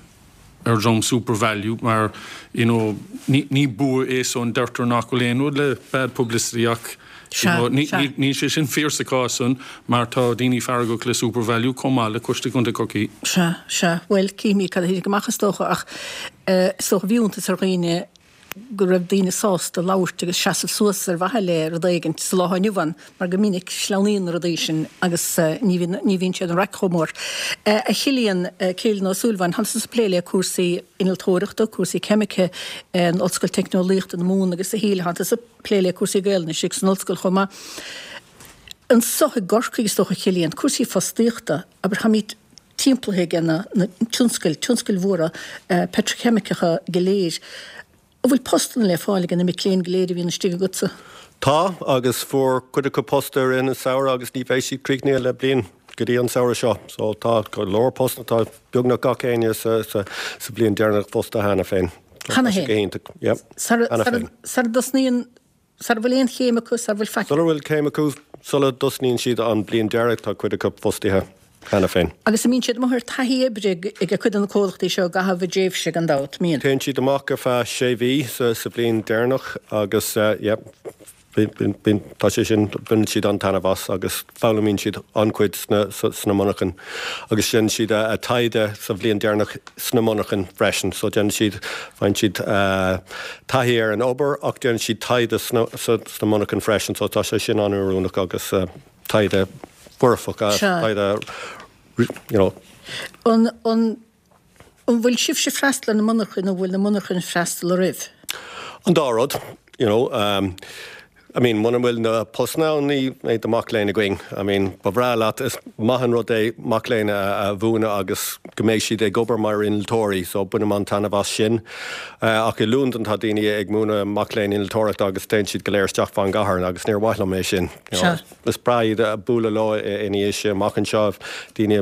ar dhream Supervalu mar, you know, ní, ní bua é san. Deirtear nach bhfuil aon rud le bad publicity ach, Níl sé sin fíor sa chás san mar tá daoine feargach le Supervalu chomh maith le Coiste Contae Chorcaí. Sea, sea. Bhuel, cífimid cad a thitfidh amach is dócha ach is dócha bhí iontas ar dhaoine go raibh daoine sásta labhairt agus seasamh suas ar mhaithe le rud éigint sa lá inniu ann mar go minic sleamhnaíonn na rudaí sin agus ní bhíonn, ní bhíonn siad an raic chomh mór. A Chillian, Cillian Ó Súilleabháin, tánn tusa ag plé le cúrsaí innealtóireachta, cúrsaí ceimice in Ollscoil Teicneolaíochta na Mumhan agus a Shíle, tánn tusa. plé le cúrsaí Gaelainne istigh san ollscoil chomh maith. Anso i gCorcaigh, is dócha, Cillian, cúrsaí fostaíochta, abair, táimid timpeallaithe ag na tionscail, tionscail mhóra peitriceimiceacha go léir. An bhfuil postanna le fáil ag na mic léinn go léir a bhíonn istigh agatsa? Tá, agus fuair cuid acu post i rith an samhradh agus ní bheidh siad críochnaithe le bliain go dtí an samhradh seo. So tá go leor postanna, tá beagnach gach éinne sa bhliain deireanach fostaithe cheana féin. Cheana féin? Sara dtosnaíonn, sara bhfuil aon chéim acu, sara bhfuil faic. Sula bhfuil céim acu, sula dtosnaíonn siad an bhliain deiridh, tá cuid acu fostaithe cheana féin. Agus an mbíonn siad amuigh ar taithí oibre ag cuid de na comhlachtaí seo i gcaitheamh a dtréimhse, gan dabht, mbíonn? Téann siad amach ar feadh sé mhí sa bhliain deireanach agus, yeah. Bíonn, tá sé sin, baineann siad an-taitneamh as agus foghlaimíonn siad an-chuid sna, sna monarchain agus déanann siad a taighde sa bhliain deireanach sna monarchain freisin. So déanann siad, faigheann siad taithí ar an obair ach déanann siad taighde sna, sna monarchain freisin. So tá sé sin an-oiriúnach agus taighde foirfeach, taighde, you know. An, an. An bhfuil sibhse ag freastal ar na monarchain nó an bhfuil na monarchain ag freastal oraibh? An dá rud, you know. I mean, muna bhfuil na postanna ann, ní bheidh na mac léinn againn. I mean, ba bhreá leat, is maith an rud é mac léinn a mhúineadh agus go mbeidh siad ag obair mar innealtóirí, so bainim an-taitneamh as sin. Ach i Londain tá daoine ag múineadh mac léinn innealtóireachta agus téann siad go léir isteach fán gcathair agus níor mhaith liom é sin, you know. Is breá iad a bualadh leo ina dhiaidh sin amach anseo, daoine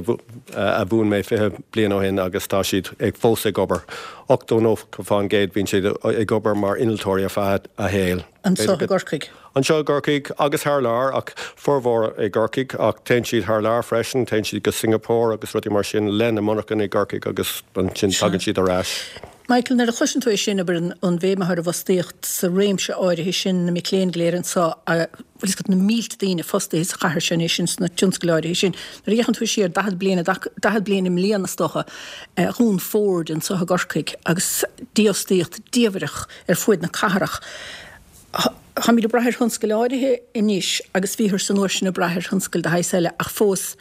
a mhúin mé 20 bliain ó shin agus tá siad ag fós ag obair. 80, 90% bíonn siad ag obair mar innealtóirí ar feadh a shaoil. Anseo i gCorcaigh? Anseo i gCorcaigh agus thar lear ach formhór i gCorcaigh ach téann siad thar lear freisin, téann siad go Singapore agus rudaí mar sin le na monarchain i gCorcaigh agus ansin tagann siad ar ais. Michael, nuair a chloiseann tú é sin, abair, an bhéim atá ar an bhfostaíocht sa réimse áirithe sin, na mic léinn go léir anseo, bhfuil fhios agat, na mílte daoine fostaithe sa chathair seo anois ins na tionscail áirithe sin. Nuair a fhéachann tú siar 40 bliain, 40 bliain i mbliana is dócha, dhún Ford anseo i gCorcaigh agus dífhostaíocht diamhrach ar fuaid na cathrach. Táimid ag brath ar thionscail áirithe anois agus bhíothar san uair sin ag brath ar thionscail de shaghas eile ach fós,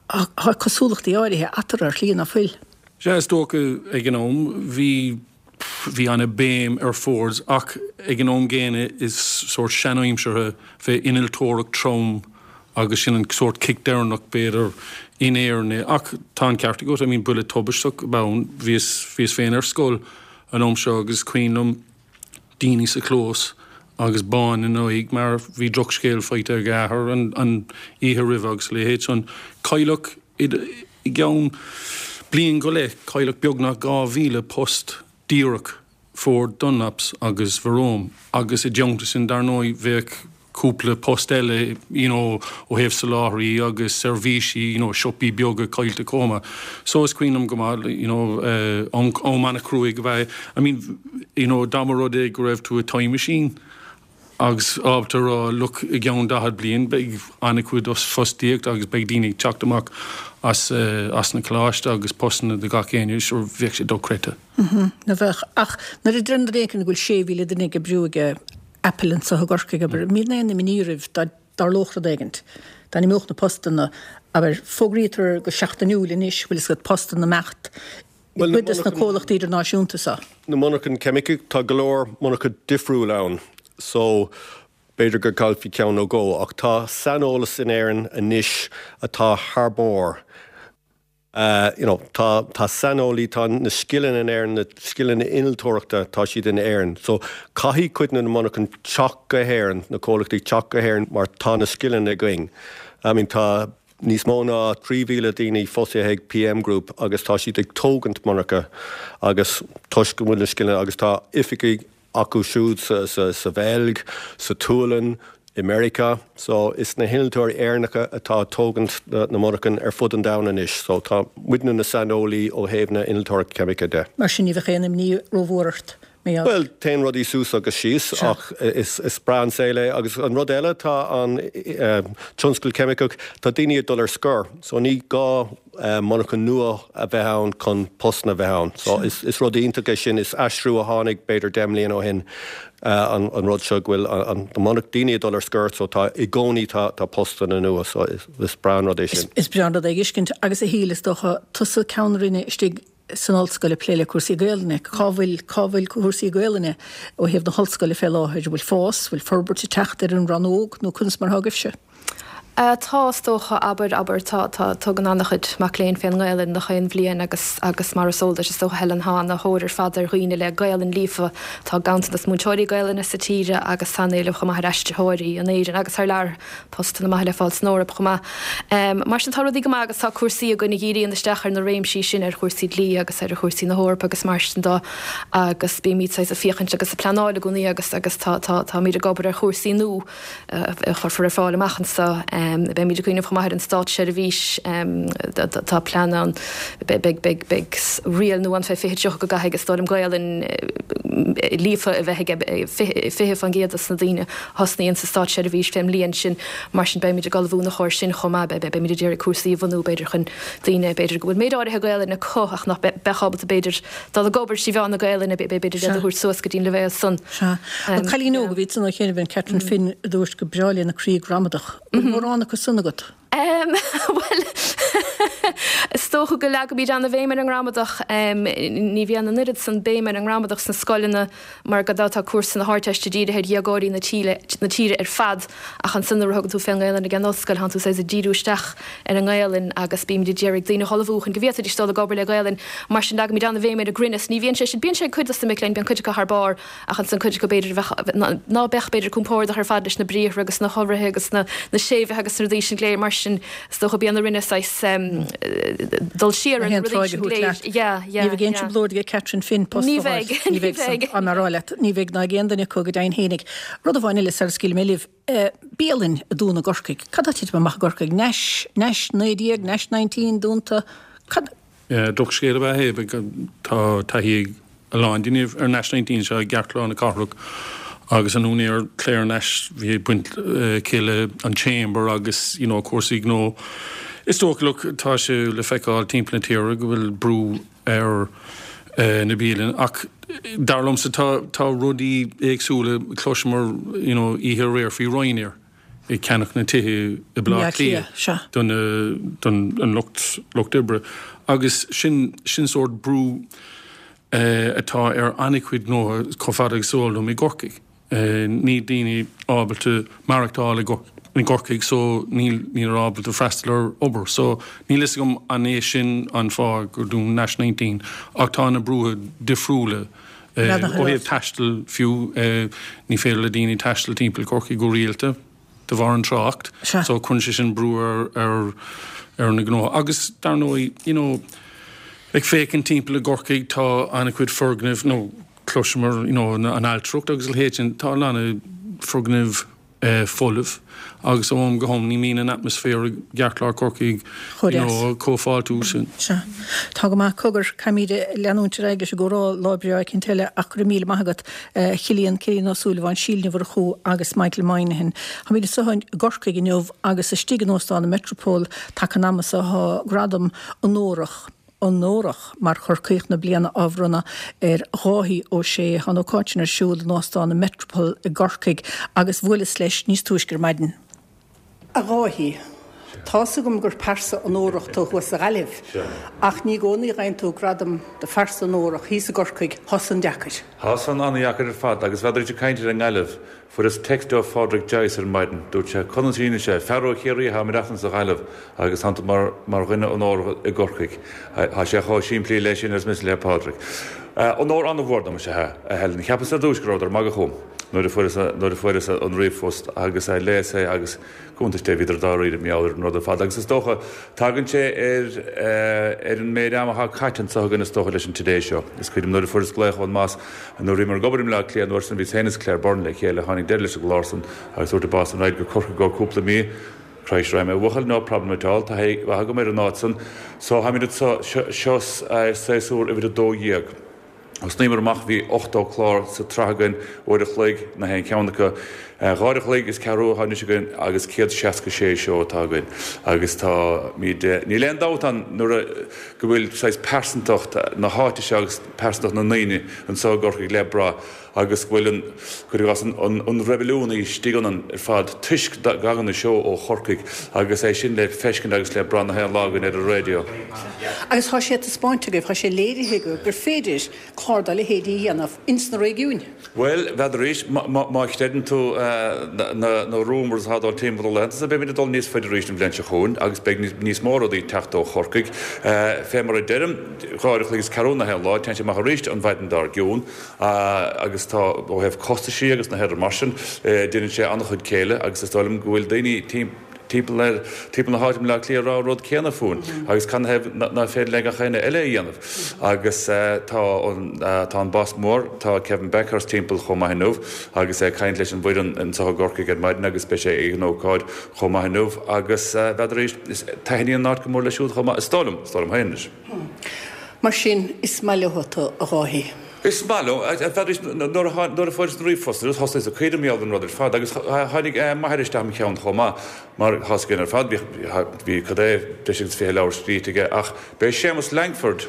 Tá cosúlachtaí áirithe eatarthu ar shlí ná fuil. Sea, is dócha ag an am bhí, bhí ana béim ar Fords ach ag an am gcéanna is sórt seanaimseartha bheith innealtóireacht trom agus sin an sórt cic deireanach b'fhéidir in Éirinn é. Ach tá an ceart agat, I mean buille tubaisteach ab ann. Bhíos, bhíos féin ar scoil an am seo agus is cuimhin liom, daoine sa chlós agus bán ina n-aghaidh mar bhí drochscéal faighte ag a athair an oíche roimhe agus a leithéid san. Cailleadh i gceann bliain go leith, cailleadh beagnach 2,000 post díreach, Ford, Dunlops agus Verome agus i dteannta sin dar ndóigh bheadh cúpla post eile you know ó thaobh soláthraí agus seirbhísí you know siopaí beaga caillte chomh maith. So is cuimhin liom go maith you know am am an-chruaidh ab ea é. I mean you know dá mba rud é go raibh tú i time machine. Agus ábalta a rá, look, i gceann 40 bliain beidh an-chuid fostaíocht agus beidh daoine ag teacht amach as as na coláiste agus postanna do gach éinne, sure bheadh sé dochreidte. Ná bheadh. Ach nuair a deireann duine éicint go bhfuil 6,000 duine ag oibriú ag Apple anseo i gCorcaigh, abair, an mbíonn aon imní oraibh dá dtarlódh rud éigint, dá n-imeodh na postanna, abair, fógraítear go seachtainiúil anois, bhfuil fhios agat, postanna imeacht i gcuid des na comhlachtaí idirnáisiúnta seo. Na monarchain ceimice, tá go leor monarcha difriúil ann so b'fhéidir go gcaillfí ceann nó dhó ach tá saineolas in Éirinn anois atá thar barr. You know, tá, tá saineolaí, tá na scileanna in Éirinn, na scileanna innealtóireachta, tá siad in Éirinn. So caithfidh cuid de na monarchain teacht go hÉirinn, na comhlachtaí teacht go hÉirinn mar tá na scileanna againn. I mean tá níos mó ná 3,000 daoine fostaithe ag PM Group agus tá siad ag tógaint monarcha agus toisc go bhfuil na scileanna agus tá oifigí acu siúd sa Bheilg, sa tSualainn, i Meiriceá. So is na hinnealtóirí Éireannacha atá ag tógaint na monarchan ar fud an domhain anois. So tá muidne na saineolaí ó thaobh na innealtóireachta ceimice de. Mar sin ní bheadh aon imní rómhór ort. Bhuel, téann rudaí suas agus síos ach is breá an saol é. Agus an rud eile, tá an tionscal ceimiceach, tá daoine ag dul ar scor, so ní gá monarcha nua a bheith ann chun postanna a bheith ann. So is rud iontach é sin, is aistriú a tháinig b'fhéidir 10 mbliana ó shin an rud seo go bhfuil an daoine ag dul ar scor so tá i gcónaí tá postanna nua so is breá an rud é sin. Is breá an rud é a fheiscint agus a Shíle is dócha tusa ceann roinne istigh san ollscoil ag plé le cúrsaí Gaelainne. Cá bhfuil, cá bhfuil cúrsaí Gaelainne ó thaobh na hollscoile fé láthair? An bhfuil fás, bhfuil forbairt ag teacht ar an rannóg nó conas mar atá agaibhse? Tá, is dócha, abair, abair, tá, tá, tugann an-chuid mac léinn fén nGaelainn gach aon bhliain agus, agus mar is eol duit, is dócha, Helen, tá ana-thóir ar fad ar dhaoine le Gaelainn líofa. Tá ganntanas múinteoirí Gaelainne sa tír agus tá an-éileamh chomh maith ar aistritheoirí in Éirinn agus thar lear. Postanna maithe le fáil san Eoraip chomh maith. Mar sin tá rudaí go maith agus tá cúrsaí againn a dhíríonn isteach ar na réimsí sin, ar chúrsaí dlí agus ar chúrsaí na hEorpa agus mar sin de agus bímid saghas ag féachaint agus ag pleanáil i gcónaí agus agus tá tá táimid ag obair ar chúrsaí nua a chuirfear ar fáil amach anseo. Beimid ag cuimhneamh chomh maith ar an státseirbhís, tá plean ann, beidh beidh beidh riail nua ann fé 2030 go gcaithfidh is dóigh liom Gaelainn líofa a bheith ag 20% de na daoine thosnaíonn sa státseirbhís fén mbliain sin. Mar sin beimid ag ullmhú ina chomhair sin chomh maith. Beimid ag iarraidh cúrsaí a bhunú b'fhéidir chun daoine b'fhéidir go bhfuil méid áirithe Gaelainne acu ach nach mbeadh ábalta b'fhéidir dul ag obair trí mheán na Gaelainne b'fhéidir iad a thabhairt suas go dtí an leibhéal san. Sea. An cailín óg a bhí ansan ó chianaibh an Catherine Finn a dúirt gur breá léi na croí gramadach. Bhfuil mórán acu san agat? Bhuel, is dócha go leagaimid an-bhéim ar an ngramadach. Ní bhíonn an oiread san béim ar an ngramadach sna scoileanna mar gan dabht tá cúrsa na hArdteiste dírithe ar dhéagóirí na tíre ar fad ach ansan nuair a thugann tú fén nGaelainn ag an ollscoil tánn tú saghas ag díriú isteach ar an nGaelainn agus bímid ag iarraidh daoine a ullmhú chun go bhféadfaidís dul ag obair le Gaelainn. Mar sin leagaimid an-bhéim ar an gcruinneas. Ní bhíonn sé sin, bíonn sé ag cuid dos na mic léinn, bíonn cuid acu thar barr Ach ansan cuid acu b'fhéidir a bheadh, ná beadh b'fhéidir compordach ar fad leis na briathra agus na hiolraithe agus na séimhithe agus na rudaí sin go léir. Mar sin is dócha bíonn orainne saghas dul siar ar na rudaí sin go léir. Yeah, yeah, Ní bheidh aon trioblóid ag Catherine Finn post a fháil. Ní bheidh, ní bheidh. Tá mé ag rá leat, ní bheidh ná ag aon duine acu go deimhin fhéinig. Rud amháin eile sara scaoilfidh mé libh, bialann a dúnadh i gCorcaigh. Cad tá ag titim amach i gCorcaigh? Nash, Nash 19, Nash 19 dúnta. Cad. Drochscéal ab ea é. Tá taithí ag a lán daoine ar Nash 19 seo i gceartlár na cathrach agus an úinéir Claire Nash bhí baint aici le an Chamber agus you know cúrsaí gnó. Is dócha look tá sé le feiceáil timpeall na tíre go bhfuil brú ar na bialanna ach dar liomsa tá tá rudaí éagsúla chloiseamar you know oíche aréir faoi Ryanair. ag ceannach na tithe i Baile Átha Cliath don don lucht lucht oibre agus sin sin sórt brú atá ar an-chuid gnótha chomh fada agus is eol dom i gCorcaigh. Níl daoine ábalta maireachtáil i gCorcaigh so níl níl ábalta freastal ar obair so níl fhios agam an é sin an fáth gur dún Nash 19 ach tá na brútha difriúla Ó thaobh taistil fiú, ní féidir le daoine taisteal timpeall Chorcaí go rialta de bharr an trácht so cuireann sé sin brú ar ar na gnótha. Agus dar ndóigh, you know, ag féachaint timpeall i gCorcaigh tá an-chuid foirgnimh, nó cloiseamar, you know, an ailtireacht agus a leithéid sin, tá a lán foirgnimh. folamh agus ó am go ham ní mbíonn an atmaisféar i gceartlár Chorcaí Chomh you deas. know chomh fáiltiúil sin. Sea. Tá go maith. Cogar, caithfimid leanúint ar aghaidh leis an gcomhrá lá breá eicínt eile ach go raibh míle maith agat, a Chillian, Cillian Ó Súilleabháin, Síle Ní Mhurchú agus Michael Moynihan. Táimid anseo i gCorcaigh inniu agus istigh in Óstán an Metropole taca an ama seo tá gradam onórach, onórach mar Chorcaíoch na Bliana á bhronnadh ar Dháithí Ó Sé. Tá an ócáid sin ar siúl in Óstán an Metropole i gCorcaigh agus bhuaileas leis níos túisce ar maidin. A Dháithí, tá's agam gur pearsa onórach tú thuas sa Ghaillimh, ach ní i gcónaí a fhaigheann tú gradam do phearsa onórach thíos i gCorcaigh, tá san deacair. Tá san an-dheacair ar fad agus n'fheadar ag caint ar an nGaillimh, Fuaireas text ó Phádraic Joyce ar maidin. Dúirt sé, Conas a dhéanann sé, fear ó Chiarraí atá ag maireachtaint sa Ghaillimh agus tánn tú mar mar dhuine onórach i gCorcaigh. Tá sé chomh simplí leis sin arsa mise le Pádraic. Onóir an-mhór dom is ea a Helen. Cheapas ar dtúis go rabhadar ag magadh chugam nuair a fuaireas nuair a fuaireas an ríomhphost agus léas é agus Cuntas Dé, bhíodar dáiríre mar gheall ar an rud ar fad agus is dócha, tagann sé ar ar an méid ama atá caite anseo againn is dócha leis an Today Show. Is cuimhin liom nuair a fuaireas glaoch ón mboss nuair a bhíomar ag obair i mBleá Cliath an uair san, bhíos féin is Claire Byrne le chéile, tháinig deireadh leis an gclár san agus dúirt an boss san raghainn go Corcaigh go cúpla mí. Christ, raghaidh mé a bhuachaill, no problem at all, taithí mhaith agam ar an áit san. So táimid anseo, seo séasúr uimhir 12. Thosnaíomar amach, bhí 80 clár sa tsraith againn, uair a chloig na haon cheann acu. Dhá uair a chloig is ceathrú atá anois againn agus 166 seó atá againn. Agus táimid, níl aon dabht ann nuair a, go bhfuil saghas pearsantacht na háite seo agus pearsantacht na ndaoine anseo i gCorcaigh le brath. agus go bhfuil an, cuir i gcás, an, an reibiliún istigh ionainn ar fad toisc go dtagann an seó ó Chorcaigh agus é sin le feiscint agus le brath na haon lá againn ar an raidió. Agus tá sé taispeáinte agaibh, tá sé léirithe agaibh gur féidir clár dá leithéid a dhéanamh ins na réigiúin. Bhuel, n'fheadar arís, má chreideann tú na na rumours atá ag dul timpeall na laethanta so beimid ag dul níos faide arís an bhliain seo chugainn agus beidh níos mó rudaí ag teacht ó Chorcaigh. Fé mar a deirim, dhá uair a chloig is ceathrú na haon lá, téann sé amach arís an mhaidin dár gcionn. Agus tá, ó thaobh costaisí agus na rudaí mar sin, déanann sé an-chuid céille agus is dóigh liom go bhfuil daoine timpeall ar, timpeall na háite i mBleá Cliath ag rá an rud céanna fúinn agus canathaobh nach féidir le gach éinne eile é a dhéanamh. Agus tá an, tá an boss mór, tá Kevin Bakhurst timpeall chomh maith inniu agus é ag caint leis an bhfoireann anseo i gCorcaigh ar maidin agus beidh sé ag an ócáid chomh maith inniu agus n'fheadar arís, taitníonn an áit go mór leis siúd chomh maith, is dóigh liom, is dóigh liom féin anois. Mar sin, is maith leo tú, a Dháithí. Is maith leo. N'fheadar arís, nuair a fuaireas an ríomhphost, thosnaíos ag cuimhneamh mar gheall ar an rud ar fad agus tháinig m'athair isteach im cheann chomh maith, mar tá a fhios againn ar fad, bhí, cad é, breis agus 20 leabhar scríte aige ach b'é Séamus Langford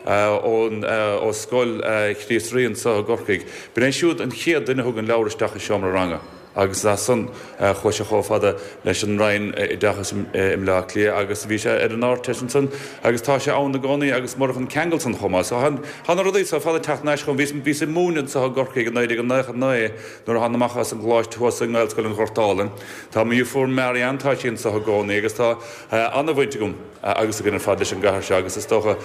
ón, ó Scoil Chríost Rí anseo i gCorcaigh, b'in é siúd an chéad duine a thug an leabhar isteach i seomra ranga. Agus as san chuaigh sé chomh fada leis an Roinn Oideachais i mBleá Cliath agus bhí sé ar an Ardteist ansan agus tá sé ann i gcónaí agus murach an ceangal san chomh maith. So tá na rudaí so ar fad ag teacht thar n-ais chugam. Bhíos, bhíos ag múineadh anseo i gCorcaigh i 1999 nuair a thána amach as an gcoláiste thuas i nGaelscoil an Ghoirt Álainn. Tá mo dheirfiúr Marianne, tá sí anseo i gcónaí agus tá an-bhaint agam agus againn ar fad leis an gcathair seo agus is dócha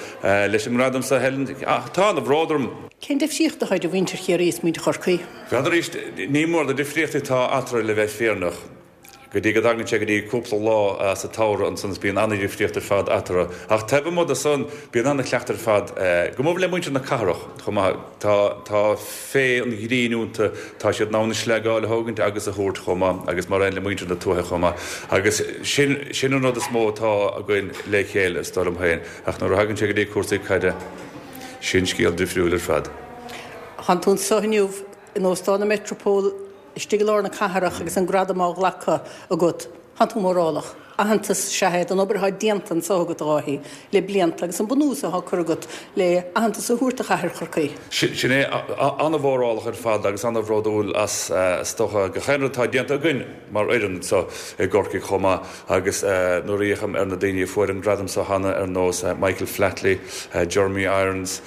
leis an ngradam so Helen, tá an-bhród orm. Cén difríocht atá idir mhuintir Chiarraí is muintir Chorcaí? N'fheadar arís, ní mór na difríochtaí atá eatarthu le bheith fírinneach. Go dtí go dtagann sé go dtí cúpla lá sa tsamhradh ansan is bíonn an-dhifríocht ar fad eatarthu. Ach taobh amuigh de san, bíonn an-chleachtadh ar fad, go mór le muintir na cathrach chomh maith. Tá, tá féith an ghrinn iontu, tá siad in ann an sleagáil a thógaint agus a thabhairt chomh maith agus mar aon le muintir na tuaithe chomh maith. Agus sin, sin an rud is mó atá againn le chéile, is dóigh liom féin. Ach nuair a thagann sé go dtí cúrsaí caide, sin scéal difriúil ar fad. Tánn tú anso inniu in Óstán an Metropole istigh i lár na cathrach agus an gradam á ghlacadh agat. Tánn tú mórálach. Aitheantas is ea é don obair atá déanta anso agat, a Dháithí, le blianta agus an bunús atá curtha agat le haitheantas a thabhairt do chathair Chorcaí. Sin é. An-mhórálach ar fad agus an-bhródúil as, is dócha, gach aon rud atá déanta againn mar fhoireann anso i gCorcaigh chomh maith agus nuair a fhéachaim ar na daoine a fuair an gradam so cheana ar nós Michael Flatley, Jeremy Irons,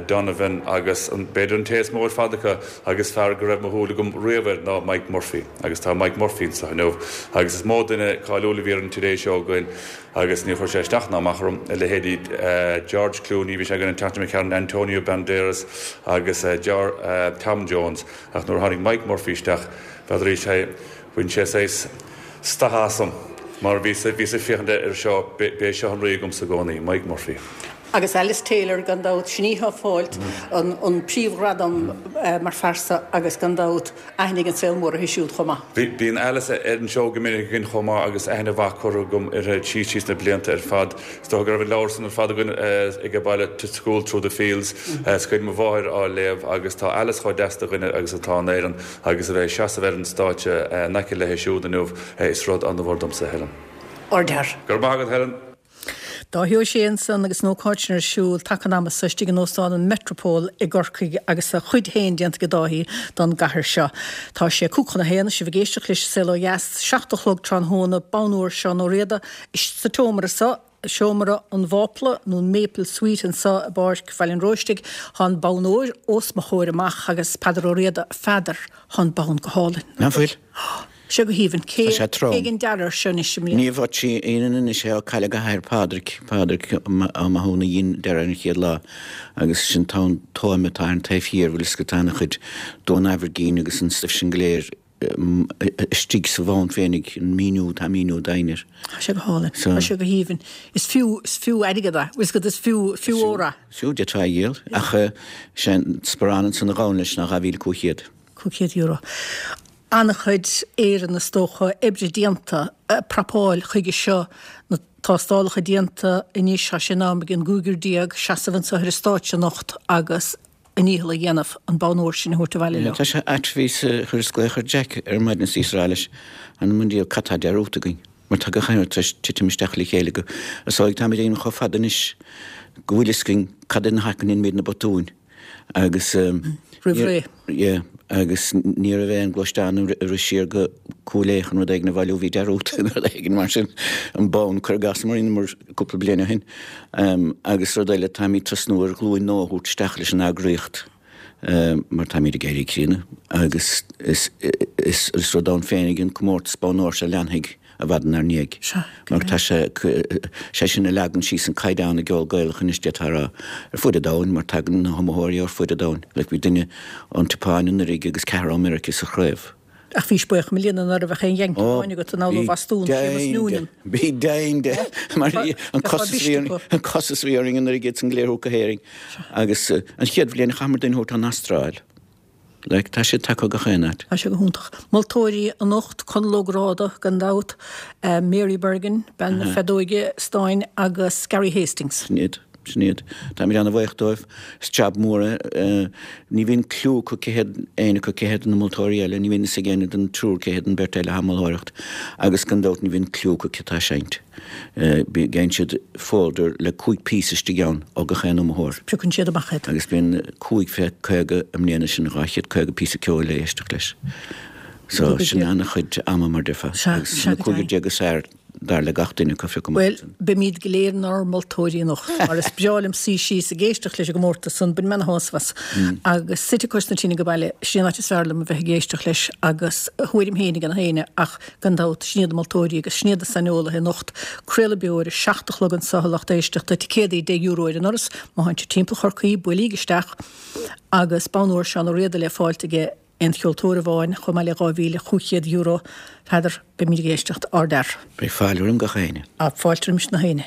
Donovan agus b'fhéidir an té is mó ar fad acu agus fear go raibh mo shúil agam riamh air ná Mike Murphy agus tá Mike Murphy anso inniu agus is mó duine cáiliúil a bhí ar an Today Show againn agus níor chuir sé isteach ná amach orm, a leithéidí George Clooney, bhí sé againn an tseachtain seo caite, Antonio Banderas agus Tom Jones ach nuair a tháinig Mike Murphy isteach n'fheadar arís é Bhain sé saghas stad asam mar bhíos ag féachaint air seo, b'é seo an rí agamsa i gcónaí, Mike Murphy. Agus Alice Taylor gan dabht, sin í atá ag fáilt an príomhghradam mar phearsa agus gan dabht aithne ag an saol mór uirthi siúd chomh maith. Bíonn Alice ar an seó go minic againn chomh maith agus aithne mhaith curtha agam uirthi síos tríd na blianta ar fad. Is dócha go raibh an leabhar san ar fad againn ag baile, To School Through the Fields. Is cuimhin mo mháthair á léamh agus tá Alice chomh deas de dhuine agus atá in Éirinn agus a bheith ag seasamh ar an stáitse in aice léi siúd inniu is rud an-mhór domsa, Helen. Ardfhear. Go raibh maith agat, Helen. Dáithí Ó Sé ansan agus an ócáid sin ar siúl taca an ama so istigh in Óstán an Metropole i gCorcaigh agus a chuid féin déanta ag Dáithí don gcathair seo. Tá sé 12:55, sibh ag éisteacht leis An Saol Ó Dheas, 7 a chlog tráthnóna, bonn óir Seán Ó Riada sa tseomra so, Seomra an Mhápla nó an Maple Suite anso i bPáirc Bhaile an Róistigh. Tá an bonn óir os mo chomhair amach agus Peadar Ó Riada, a Pheadair, tá an bonn go hálainn. Nach bhfuil? Sé go haoibhinn. Cé Tá sé trom. a dhein dearadh air seo anois i mbliana? Ní bheadh sí ionann anois é ó cailleadh a hathair Pádraig, Pádraig Ó Mathúna a dhein dearadh ar an chéad lá agus sin tá an tóime atá ar an taobh thiar, bhfuil fhios agat, tá ana-chuid don Aimhirgín agus an stuif sin go léir istigh sa bhonn féinig, an míniú, tá míniú doimhin air. Tá sé go hálainn. Tá sé go haoibhinn. Is fiú, is fiú airgead é. Bhfuil fhios agat, is fiú, fiú ór é. Is fiú, d'fhéadfá é a dhíol. Ach sé an sparán ansan a ghabhann leis ná 2,500. €500. An-chuid Éireann is dócha, oibre déanta, prapáil chuige seo, na tástálacha déanta anois, tá sé in am ag an gcúigear déag seasamh anseo ar an stáitse anocht agus a ndícheall a dhéanamh an bonn óir sin a thabhairt abhaile leo. Tá sé ait, bhíos, chuireas glaoch ar Jack ar maidin is bhíos ag rá leis, Anam an diabhal, cad tá dearúdta againn? Mar tá gach aon rud tar éis titim isteach le chéile go, is dóigh, táimid ag déanamh chomh fada anois go bhfuil fhios againn cad ina thaca a ndéanaimid na botúin. Agus Roimh ré. Yeah, agus ní raibh aon gluaisteán a rith siar go Cúil Aodha chun rud éigin a bhailiú, bhí dearúdta nó rud éigin mar sin, an bonn, cuir i gcás, mar rinneamar cúpla bliain ó shin. Agus rud eile, táimid tosnú ar ghlúin nua a thabhairt isteach leis an eagraíocht mar táimid ag éirí críonna agus is is rud ann féinig an comórtas bonn óir seo a leanfaidh i bhfad inár ndiaidh. Mar tá sé, sé sin a leagann síos an caighdeán i gceol Gaelach anois d'fhéadfá a rá, ar fud an domhain, mar tagann na hiomaitheoirí ar fud an domhain. Like bhí duine ón tSeapáin anuraidh agus ceathrar ó Meiriceá sa chraobh. Ach bhís buíoch i mbliana ná raibh ach aon Yankee amháin agat, anall ó Bhostún, Séamus Noonan. Bhí deimhin de, mar an costas a bhí, an costas a bhí orainn anuraidh iad san go léir a thabhairt go hÉirinn. Agus an chéad bhliain chaitheamar duine a thabhairt ón Astráil. Like, tá siad tagtha ó gach aon áit. Tá sé go hiontach. Moltóirí anocht, Conall Ó Gráda, gan dabht, Mary Bergin, bean na feadóige stáin, agus Gary Hastings. Sin iad. Sin iad. Táimid ana-bhuíoch dóibh. Is jab mór é. Ní bhíonn cliú acu cé hiad éinne acu cé hiad na moltóirí eile. Ní bhíonn fhios ag éinne den triúr cé hiad an bheirt eile atá ag moltóireacht. Agus gan dabht ní bhíonn cliú acu cé atá ag seinnt. Faigheann siad folder le 5 píosa istigh ann ó gach aon iomaitheoir. Piocann siad amach iad. Agus bíonn 5 fé 50 i mbliana, sin 250 píosa ceoil le éisteacht leis. So sin an-chuid ama mar déarfá. Agus na cúigear déag is fearr dar le gach duine acu a phiocadh amach Bhuel, beimid go léir inár moltóirí anocht, mar is breá liom suí síos ag éisteacht leis an gcomórtas san, bainim ana-shásamh as. Agus suite cois na tine age baile, sin an áit is fearr liom a bheith ag éisteacht leis agus a thuairim féin ag gach éinne ach Gan dabht, sin iad na moltóirí agus sin iad na saineolaithe anocht. Craoladh beo ar a 7 a chlog anseo, a lucht éisteachta, ticéadaí €10 ar an ndoras, má thánn sibh timpeall Chorcaí, buailíg isteach agus bonn óir Seán Ó Riada le fáilt ag aon cheoltóir amháin, chomh maith le €2,500. Peadar, beimid ag éisteacht, ardfhear. Beidh fáilte roim gach éinne. Ah, fáilte roimis na héinne.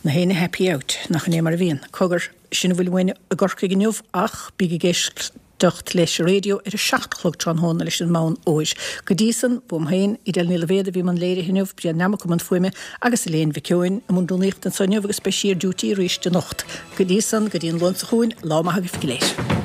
Na héinne happy out, nach in é mar a bhíonn. Cogar, sin a bhfuil uainn i gCorcaigh inniu ach bíg ag éisteacht. éisteacht leis an raidió ar a 7 a chlog tráthnóna leis an mbonn óir. Go dtí san, uaim féin, Edel Ní Loibhéad a bhí i mbun léirithe inniu, Brian Nammock i mbun fuaime agus Elaine Mhic Eoin i mbun rúnaíochta anseo inniu agus beidh sí ar duty arís anocht. Go dtí san, go dtí an Luan seo chugainn, lá maith agaibh go léir.